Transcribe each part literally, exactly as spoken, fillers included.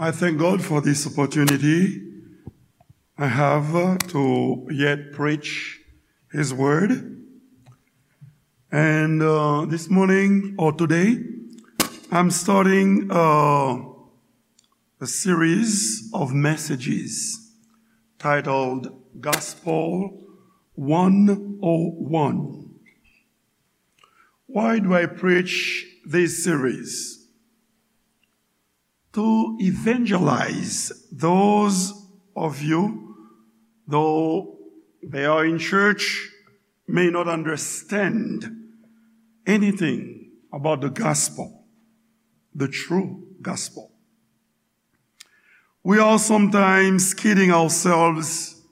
I thank God for this opportunity I have uh, to yet preach His Word. And uh, this morning or today, I'm starting uh, a series of messages titled Gospel one oh one. Why do I preach this series? To evangelize those of you, though they are in church, may not understand anything about the gospel, the true gospel. We are sometimes kidding ourselves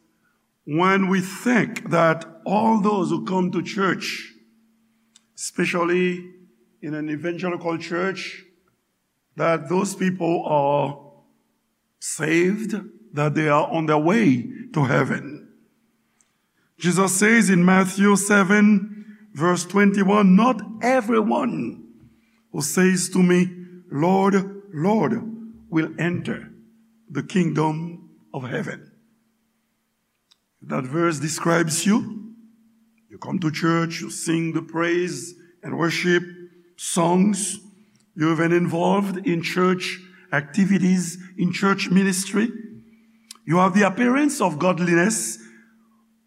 when we think that all those who come to church, especially in an evangelical church, that those people are saved, that they are on their way to heaven. Jesus says in Matthew seven, verse twenty-one, "Not everyone who says to me, 'Lord, Lord,' will enter the kingdom of heaven." That verse describes you. You come to church, you sing the praise and worship songs. You're even involved in church activities, in church ministry. You have the appearance of godliness,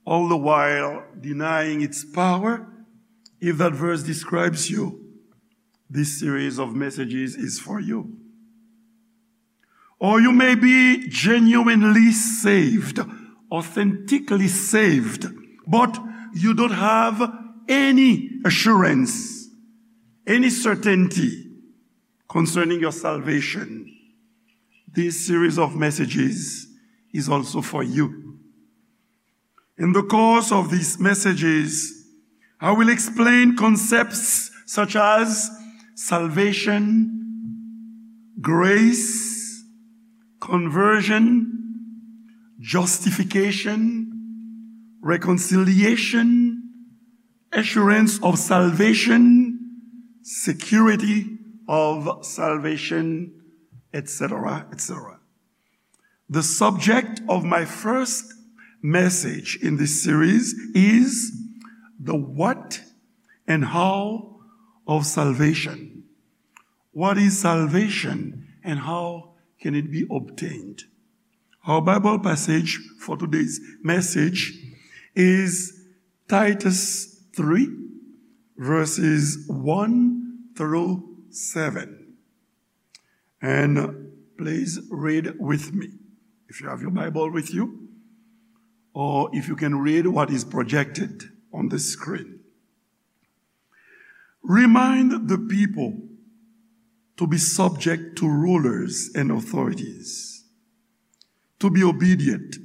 all the while denying its power. If that verse describes you, this series of messages is for you. Or you may be genuinely saved, authentically saved, but you don't have any assurance, any certainty concerning your salvation. This series of messages is also for you. In the course of these messages, I will explain concepts such as salvation, grace, conversion, justification, reconciliation, assurance of salvation, security of salvation, et cetera, et cetera. The subject of my first message in this series is the what and how of salvation. What is salvation and how can it be obtained? Our Bible passage for today's message is Titus three, verses one through seven. And please read with me, if you have your Bible with you, or if you can read what is projected on the screen. Remind the people to be subject to rulers and authorities, to be obedient,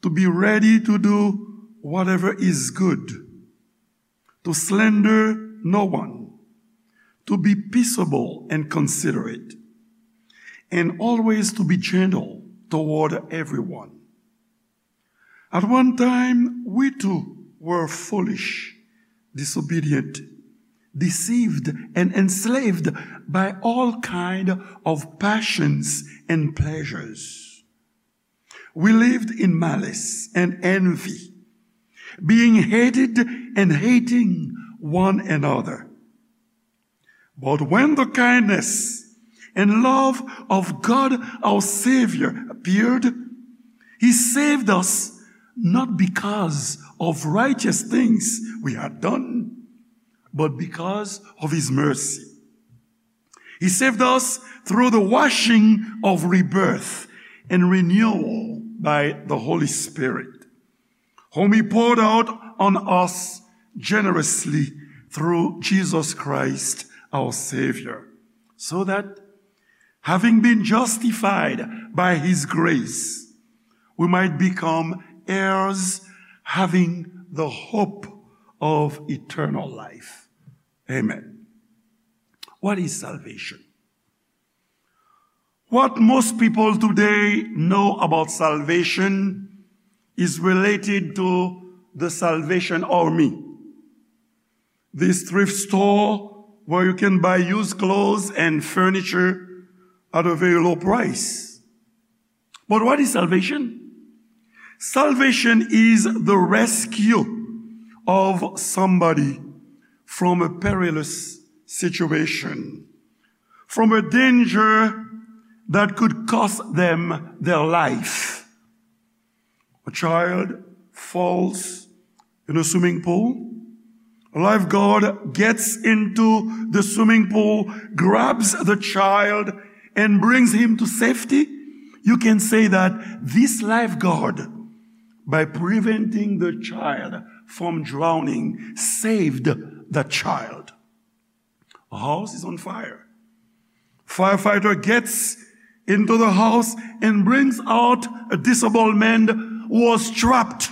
to be ready to do whatever is good, to slander no one, to be peaceable and considerate, and always to be gentle toward everyone. At one time, we too were foolish, disobedient, deceived, and enslaved by all kind of passions and pleasures. We lived in malice and envy, being hated and hating one another. But when the kindness and love of God our Savior appeared, He saved us not because of righteous things we had done, but because of His mercy. He saved us through the washing of rebirth and renewal by the Holy Spirit, whom He poured out on us generously through Jesus Christ our Savior, so that, having been justified by His grace, we might become heirs, having the hope of eternal life. Amen. What is salvation? What most people today know about salvation is related to the Salvation Army. This thrift store where you can buy used clothes and furniture at a very low price. But what is salvation? Salvation is the rescue of somebody from a perilous situation, from a danger that could cost them their life. A child falls in a swimming pool. A lifeguard gets into the swimming pool, grabs the child, and brings him to safety. You can say that this lifeguard, by preventing the child from drowning, saved the child. A house is on fire. Firefighter gets into the house and brings out a disabled man who was trapped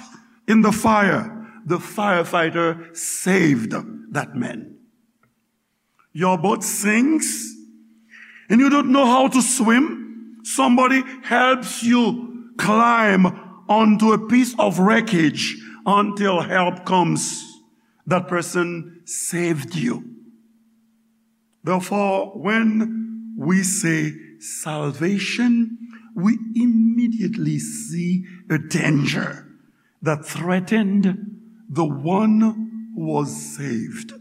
in the fire. The firefighter saved that man. Your boat sinks and you don't know how to swim. Somebody helps you climb onto a piece of wreckage until help comes. That person saved you. Therefore, when we say salvation, we immediately see a danger that threatened the one who was saved.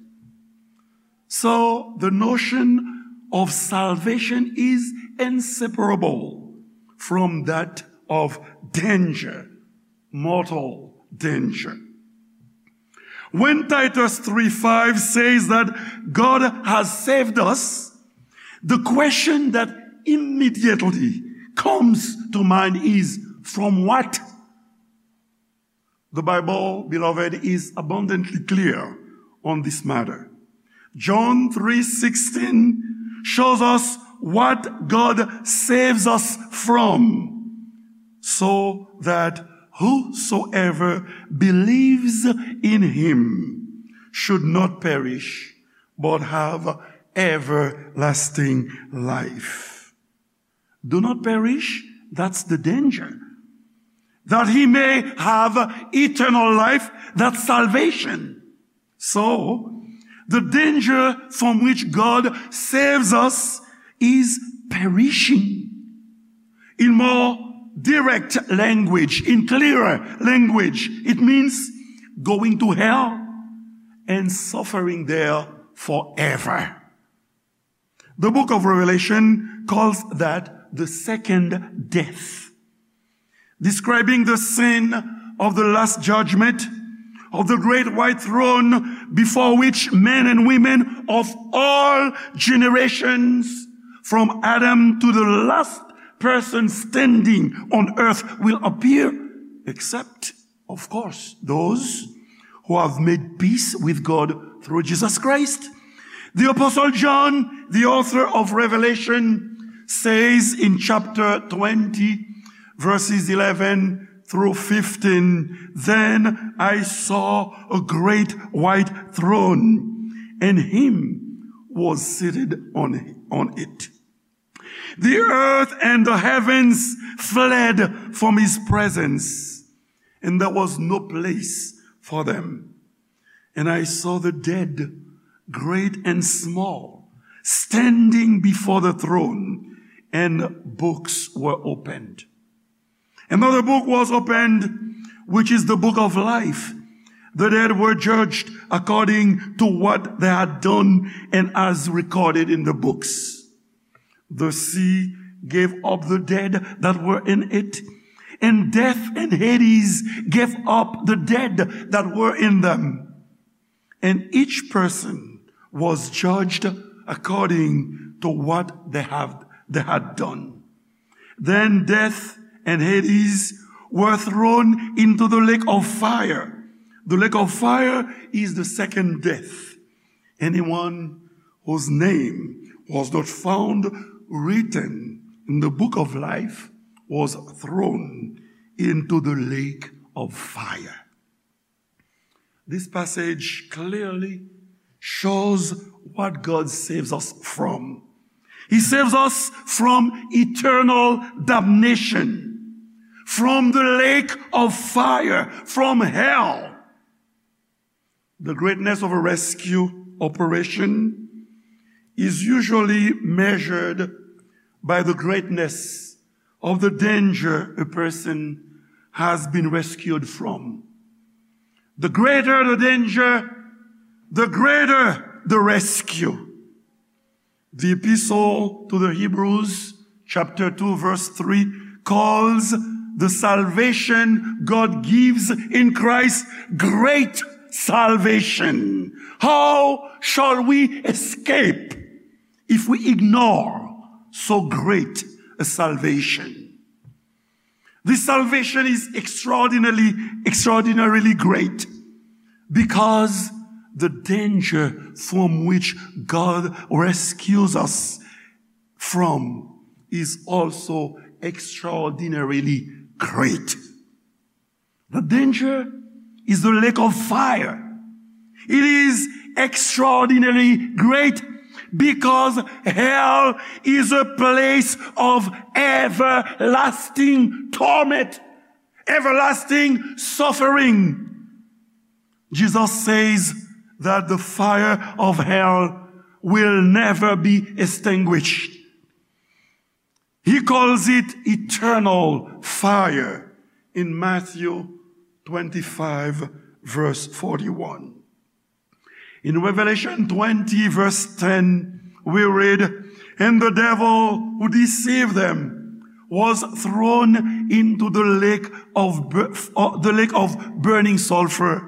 So, the notion of salvation is inseparable from that of danger, mortal danger. When Titus three five says that God has saved us, the question that immediately comes to mind is, from what? The Bible, beloved, is abundantly clear on this matter. John three sixteen shows us what God saves us from, so that whosoever believes in him should not perish, but have everlasting life. Do not perish, that's the danger. That he may have eternal life, that's salvation. So, the danger from which God saves us is perishing. In more direct language, in clearer language, it means going to hell and suffering there forever. The book of Revelation calls that the second death, describing the scene of the last judgment, of the great white throne before which men and women of all generations, from Adam to the last person standing on earth, will appear, except, of course, those who have made peace with God through Jesus Christ. The Apostle John, the author of Revelation, says in chapter twenty, verses eleven through fifteen, "Then I saw a great white throne, and him was seated on, on it. The earth and the heavens fled from his presence, and there was no place for them. And I saw the dead, great and small, standing before the throne, and books were opened." Another book was opened, which is the book of life. The dead were judged according to what they had done and as recorded in the books. The sea gave up the dead that were in it, and death and Hades gave up the dead that were in them. And each person was judged according to what they have, they had done. Then death and Hades were thrown into the lake of fire. The lake of fire is the second death. Anyone whose name was not found written in the book of life was thrown into the lake of fire. This passage clearly shows what God saves us from. He saves us from eternal damnation, from the lake of fire, from hell. The greatness of a rescue operation is usually measured by the greatness of the danger a person has been rescued from. The greater the danger, the greater the rescue. The Epistle to the Hebrews, chapter two, verse three, calls the salvation God gives in Christ great salvation. How shall we escape if we ignore so great a salvation? This salvation is extraordinarily, extraordinarily great because the danger from which God rescues us from is also extraordinarily great. The danger is the lake of fire. It is extraordinarily great because hell is a place of everlasting torment, everlasting suffering. Jesus says that the fire of hell will never be extinguished. He calls it eternal fire in Matthew twenty-five, verse forty-one. In Revelation twenty, verse ten, we read, "And the devil who deceived them was thrown into the lake of bur-, uh, the lake of burning sulfur,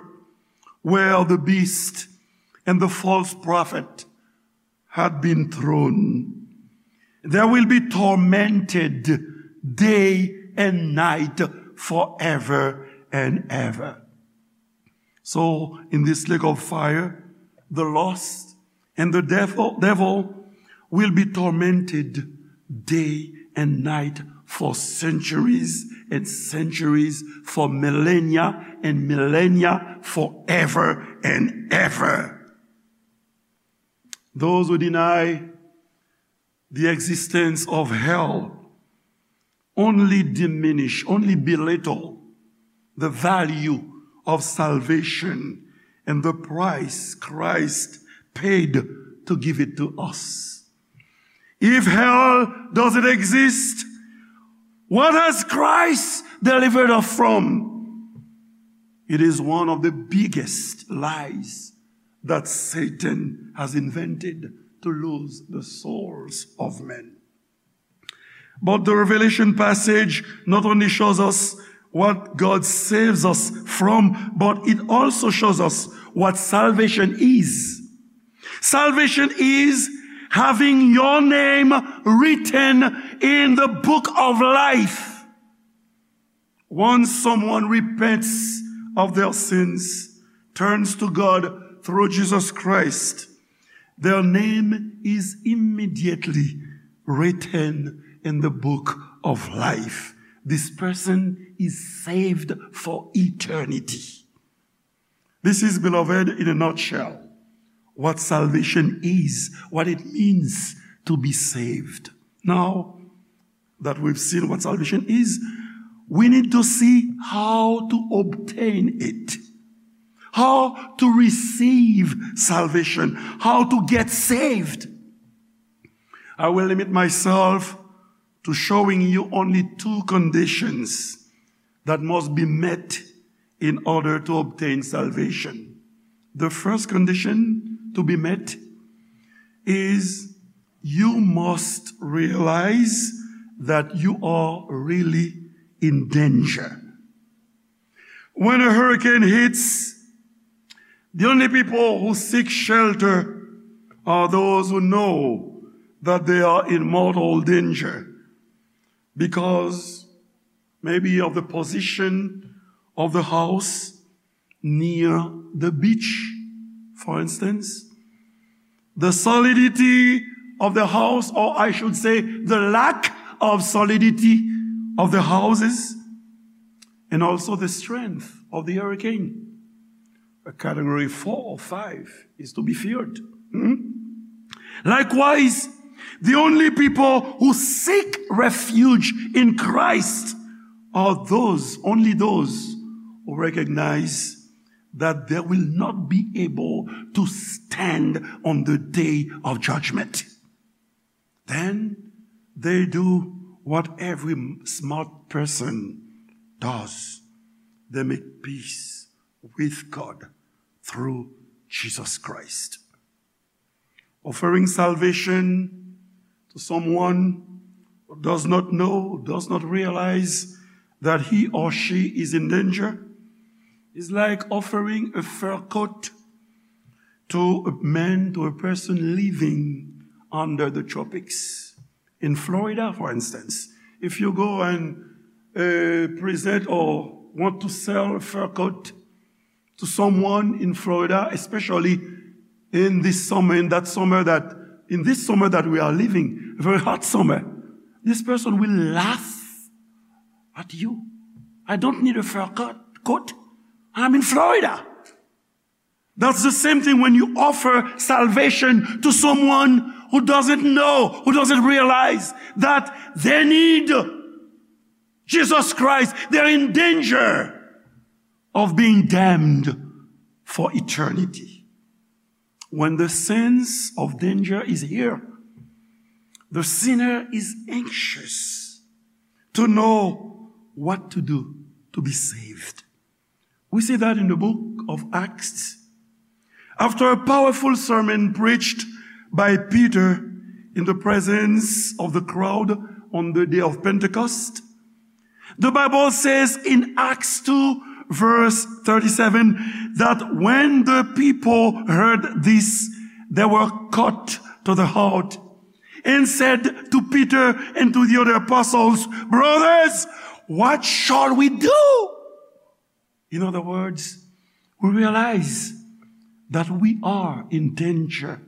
where the beast and the false prophet had been thrown. They will be tormented day and night forever and ever." So, in this lake of fire, the lost and the devil, devil will be tormented day and night for centuries and centuries, for millennia and millennia, forever and ever. Those who deny the existence of hell only diminish, only belittle the value of salvation and the price Christ paid to give it to us. If hell doesn't exist, what has Christ delivered us from? It is one of the biggest lies that Satan has invented to lose the souls of men. But the Revelation passage not only shows us what God saves us from, but it also shows us what salvation is. Salvation is having your name written in the book of life. Once someone repents of their sins, turns to God through Jesus Christ, their name is immediately written in the book of life. This person is saved for eternity. This is, beloved, in a nutshell, what salvation is, what it means to be saved. Now that we've seen what salvation is, we need to see how to obtain it, how to receive salvation, how to get saved. I will limit myself to showing you only two conditions that must be met in order to obtain salvation. The first condition to be met is you must realize that you are really in danger. When a hurricane hits, the only people who seek shelter are those who know that they are in mortal danger because maybe of the position of the house near the beach, for instance, the solidity of the house, or I should say, the lack of solidity of the houses, and also the strength of the hurricane. A category four or five is to be feared. Hmm? Likewise, the only people who seek refuge in Christ are those, only those who recognize that they will not be able to stand on the day of judgment. Then They do what every smart person does. They make peace with God through Jesus Christ. Offering salvation to someone who does not know, does not realize that he or she is in danger, is like offering a fur coat to a man, to a person living under the tropics. In Florida, for instance, if you go and uh, present or want to sell a fur coat to someone in Florida, especially in this summer, in that summer that, in this summer that we are living, a very hot summer, this person will laugh at you. I don't need a fur coat. Coat. I'm in Florida. That's the same thing when you offer salvation to someone who doesn't know, who doesn't realize that they need Jesus Christ. They're in danger of being damned for eternity. When the sense of danger is here, the sinner is anxious to know what to do to be saved. We see that in the book of Acts. After a powerful sermon preached by Peter in the presence of the crowd on the day of Pentecost, the Bible says in Acts two, verse thirty-seven, that when the people heard this, they were cut to the heart and said to Peter and to the other apostles, "Brothers, what shall we do?" In other words, we realize that we are in danger.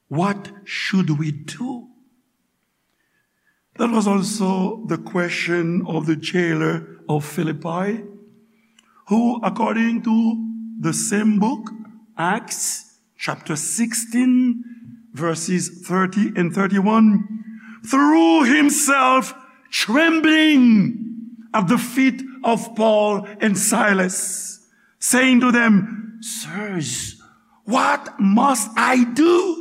What should we do? That was also the question of the jailer of Philippi, who, according to the same book, Acts chapter sixteen, verses thirty and thirty-one, threw himself trembling at the feet of Paul and Silas, saying to them, "Sirs, what must I do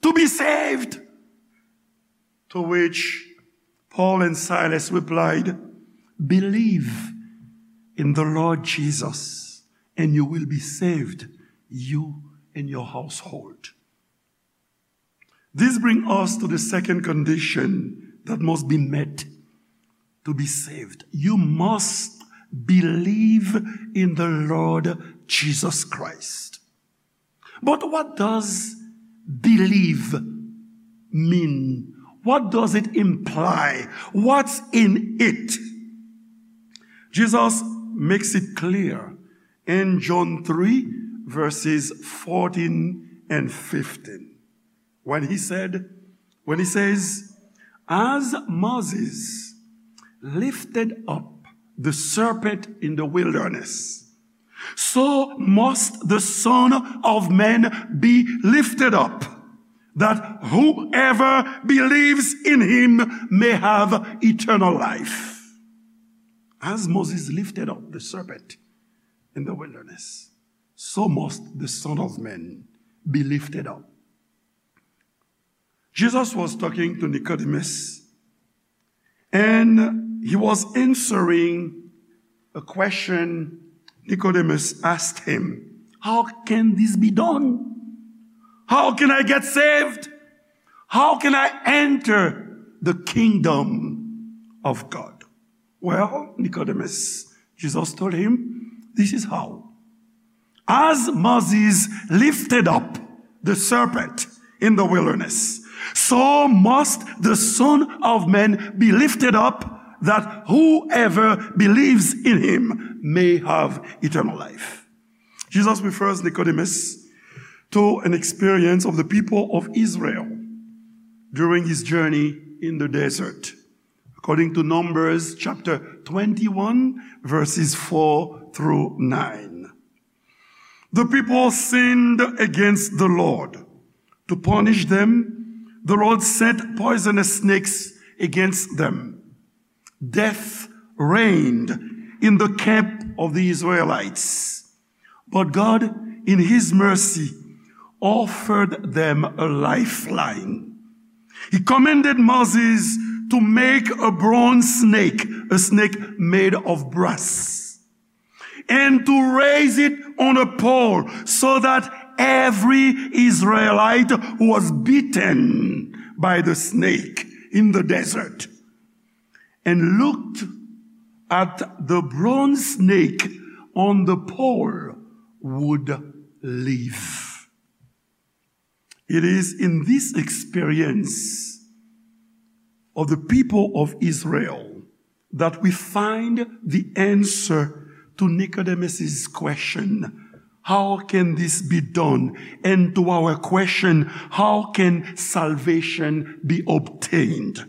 to be saved?" To which Paul and Silas replied, "Believe in the Lord Jesus, and you will be saved, you and your household." This brings us to the second condition that must be met to be saved. You must believe in the Lord Jesus Christ. But what does believe mean? What does it imply? What's in it? Jesus makes it clear in John three, verses fourteen and fifteen, when he said, when he says, "As Moses lifted up the serpent in the wilderness, so must the Son of Man be lifted up, that whoever believes in him may have eternal life." As Moses lifted up the serpent in the wilderness, so must the Son of Man be lifted up. Jesus was talking to Nicodemus, and he was answering a question Nicodemus asked him. "How can this be done? How can I get saved? How can I enter the kingdom of God?" "Well, Nicodemus," Jesus told him, "this is how. As Moses lifted up the serpent in the wilderness, so must the Son of Man be lifted up, that whoever believes in him may have eternal life." Jesus refers Nicodemus to an experience of the people of Israel during his journey in the desert, according to Numbers chapter twenty-one, verses four through nine. The people sinned against the Lord. To punish them, the Lord sent poisonous snakes against them. Death reigned in the camp of the Israelites. But God, in his mercy, offered them a lifeline. He commanded Moses to make a bronze snake, a snake made of brass, and to raise it on a pole so that every Israelite who was bitten by the snake in the desert and looked at the bronze snake on the pole would live. It is in this experience of the people of Israel that we find the answer to Nicodemus's question, "How can this be done?" And to our question, "How can salvation be obtained?"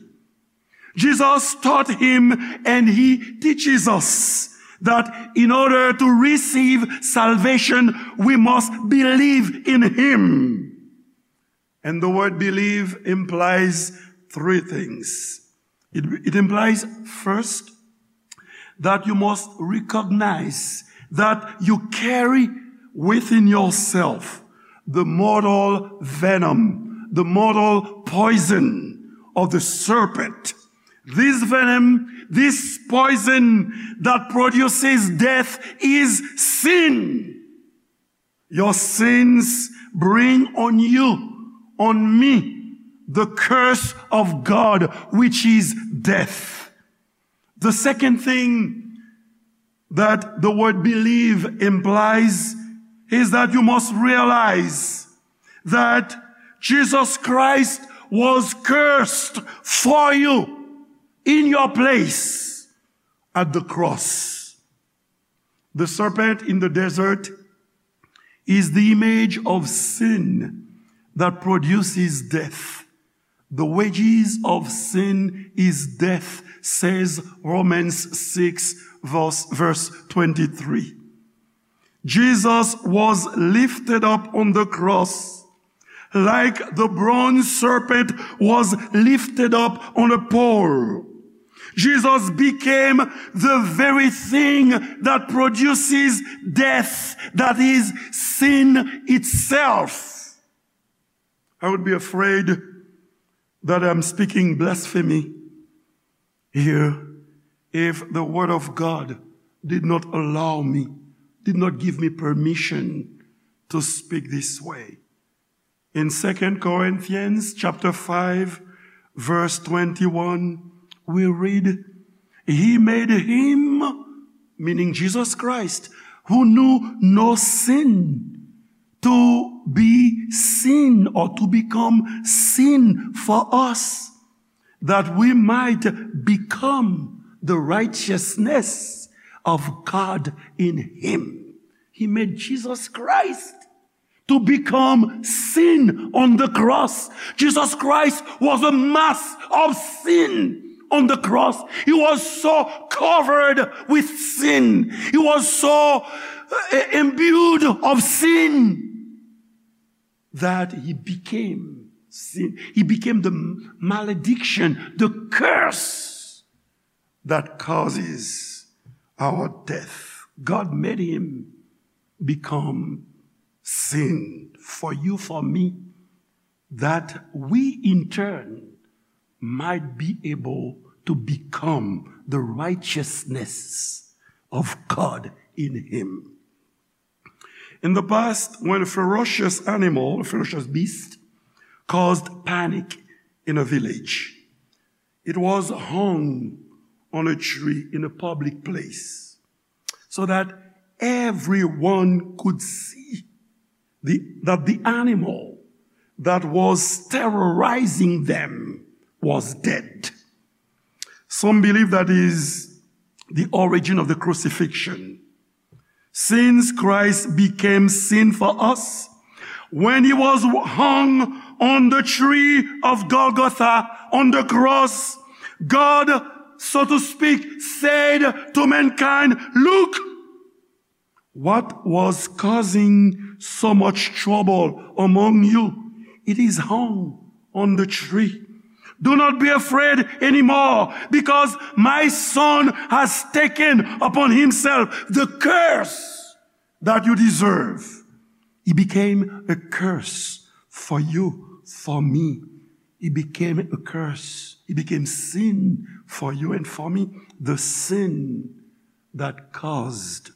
Jesus taught him and he teaches us that in order to receive salvation, we must believe in him. And the word believe implies three things. It, it implies, first, that you must recognize that you carry within yourself the mortal venom, the mortal poison of the serpent. This venom, this poison that produces death is sin. Your sins bring on you, on me, the curse of God, which is death. The second thing that the word believe implies is that you must realize that Jesus Christ was cursed for you in your place at the cross. The serpent in the desert is the image of sin that produces death. The wages of sin is death, says Romans six, verse, verse twenty-three. Jesus was lifted up on the cross like the bronze serpent was lifted up on a pole. Jesus became the very thing that produces death, that is sin itself. I would be afraid that I'm speaking blasphemy here if the word of God did not allow me, did not give me permission to speak this way. In Second Corinthians chapter five, verse twenty-one, we read, "He made him," meaning Jesus Christ, "who knew no sin, to be sin or to become sin for us, that we might become the righteousness of God in him." He made Jesus Christ to become sin on the cross. Jesus Christ was a mass of sin on the cross. He was so covered with sin. He was so uh, imbued of sin that he became sin. He became the malediction, the curse that causes our death. God made him become sin for you, for me, that we in turn might be able to become the righteousness of God in him. In the past, when a ferocious animal, a ferocious beast, caused panic in a village, it was hung on a tree in a public place so that everyone could see the, that the animal that was terrorizing them was dead. Some believe that is the origin of the crucifixion. Since Christ became sin for us, when he was hung on the tree of Golgotha, on the cross, God, so to speak, said to mankind, "Look, what was causing so much trouble among you? It is hung on the tree. Do not be afraid anymore, because my son has taken upon himself the curse that you deserve." He became a curse for you, for me. He became a curse. He became sin for you and for me. The sin that caused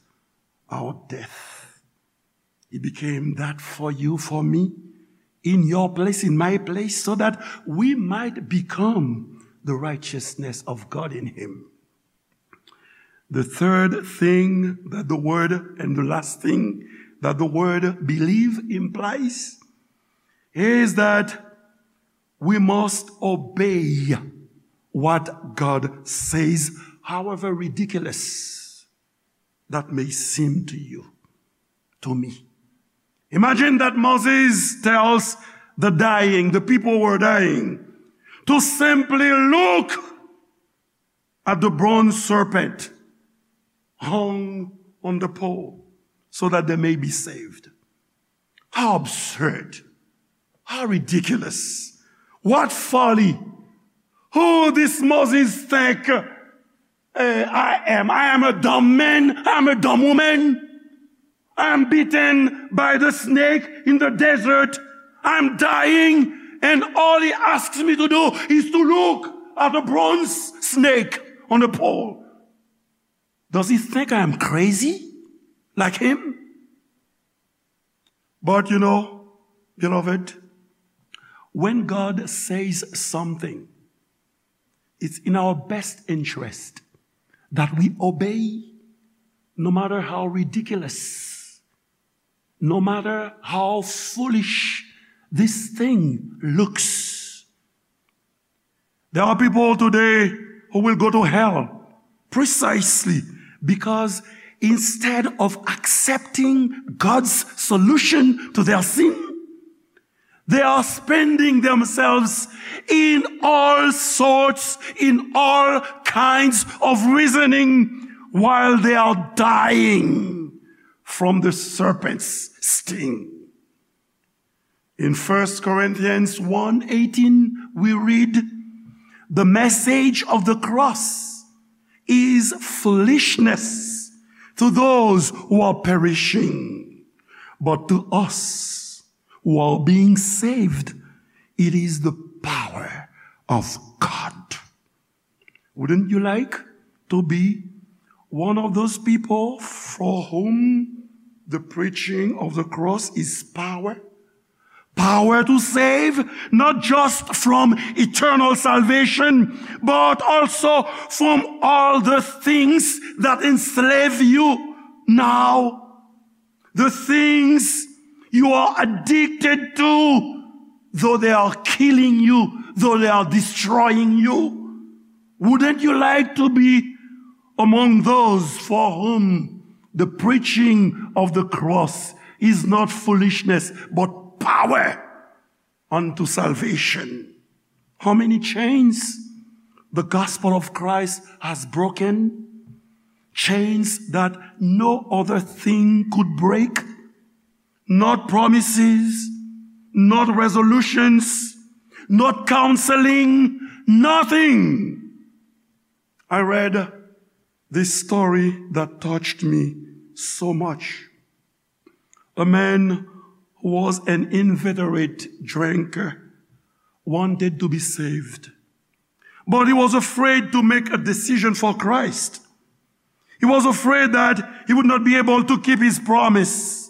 our death. He became that for you, for me, in your place, in my place, so that we might become the righteousness of God in him. The third thing that the word, and the last thing that the word believe implies, is that we must obey what God says, however ridiculous that may seem to you, to me. Imagine that Moses tells the dying, the people who were dying, to simply look at the bronze serpent hung on the pole so that they may be saved. How absurd. How ridiculous. What folly. Who this Moses think, eh, I am? I am a dumb man. I am a dumb woman. I am beaten by the snake in the desert. I am dying, and all he asks me to do is to look at a bronze snake on a pole. Does he think I am crazy like him? But you know, beloved, when God says something, it's in our best interest that we obey, no matter how ridiculous, no matter how foolish this thing looks. There are people today who will go to hell precisely because instead of accepting God's solution to their sin, they are spending themselves in all sorts, in all kinds of reasoning while they are dying from the serpent's sting. In First Corinthians one eighteen, we read, "The message of the cross is foolishness to those who are perishing, but to us who are being saved, it is the power of God." Wouldn't you like to be one of those people for whom the preaching of the cross is power? Power to save, not just from eternal salvation, but also from all the things that enslave you now. The things you are addicted to, though they are killing you, though they are destroying you. Wouldn't you like to be among those for whom the preaching of the cross is not foolishness, but power unto salvation? How many chains the gospel of Christ has broken? Chains that no other thing could break. Not promises, not resolutions, not counseling, nothing. I read this story that touched me so much. A man who was an inveterate drinker wanted to be saved, but he was afraid to make a decision for Christ. He was afraid that he would not be able to keep his promise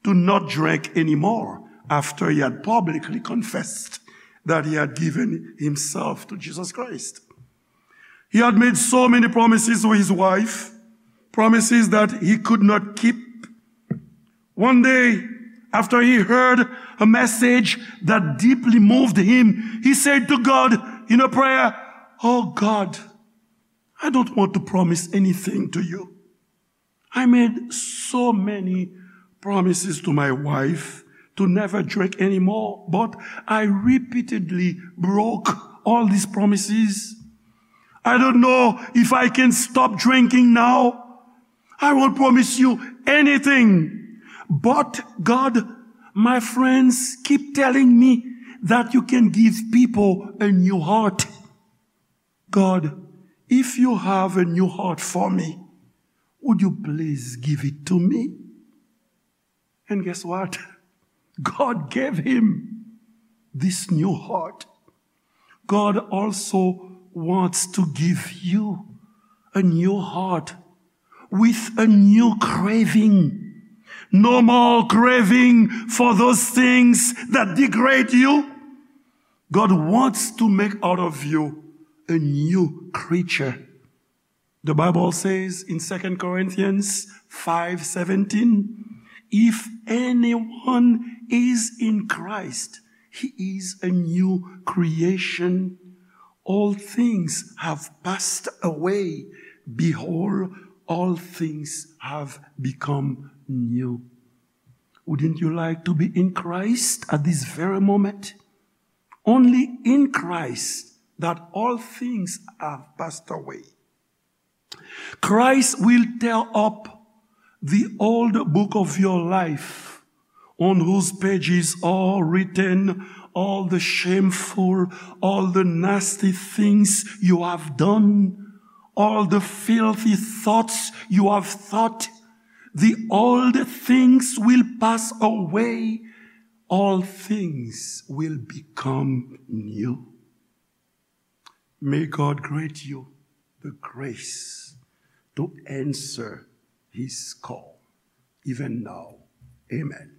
to not drink anymore after he had publicly confessed that he had given himself to Jesus Christ. He had made so many promises to his wife, promises that he could not keep. One day, after he heard a message that deeply moved him, he said to God in a prayer, "Oh God, I don't want to promise anything to you. I made so many promises to my wife to never drink anymore, but I repeatedly broke all these promises. I don't know if I can stop drinking now. I won't promise you anything." But God, my friends keep telling me that you can give people a new heart. God, if you have a new heart for me, would you please give it to me? And guess what? God gave him this new heart. God also wants to give you a new heart with a new craving. No more craving for those things that degrade you. God wants to make out of you a new creature. The Bible says in Second Corinthians five seventeen, "If anyone is in Christ, he is a new creation. All things have passed away. Behold, all things have become new." Wouldn't you like to be in Christ at this very moment? Only in Christ that all things have passed away. Christ will tear up the old book of your life, on whose pages are written all the shameful, all the nasty things you have done, all the filthy thoughts you have thought. The old things will pass away. All things will become new. May God grant you the grace to answer his call, even now. Amen.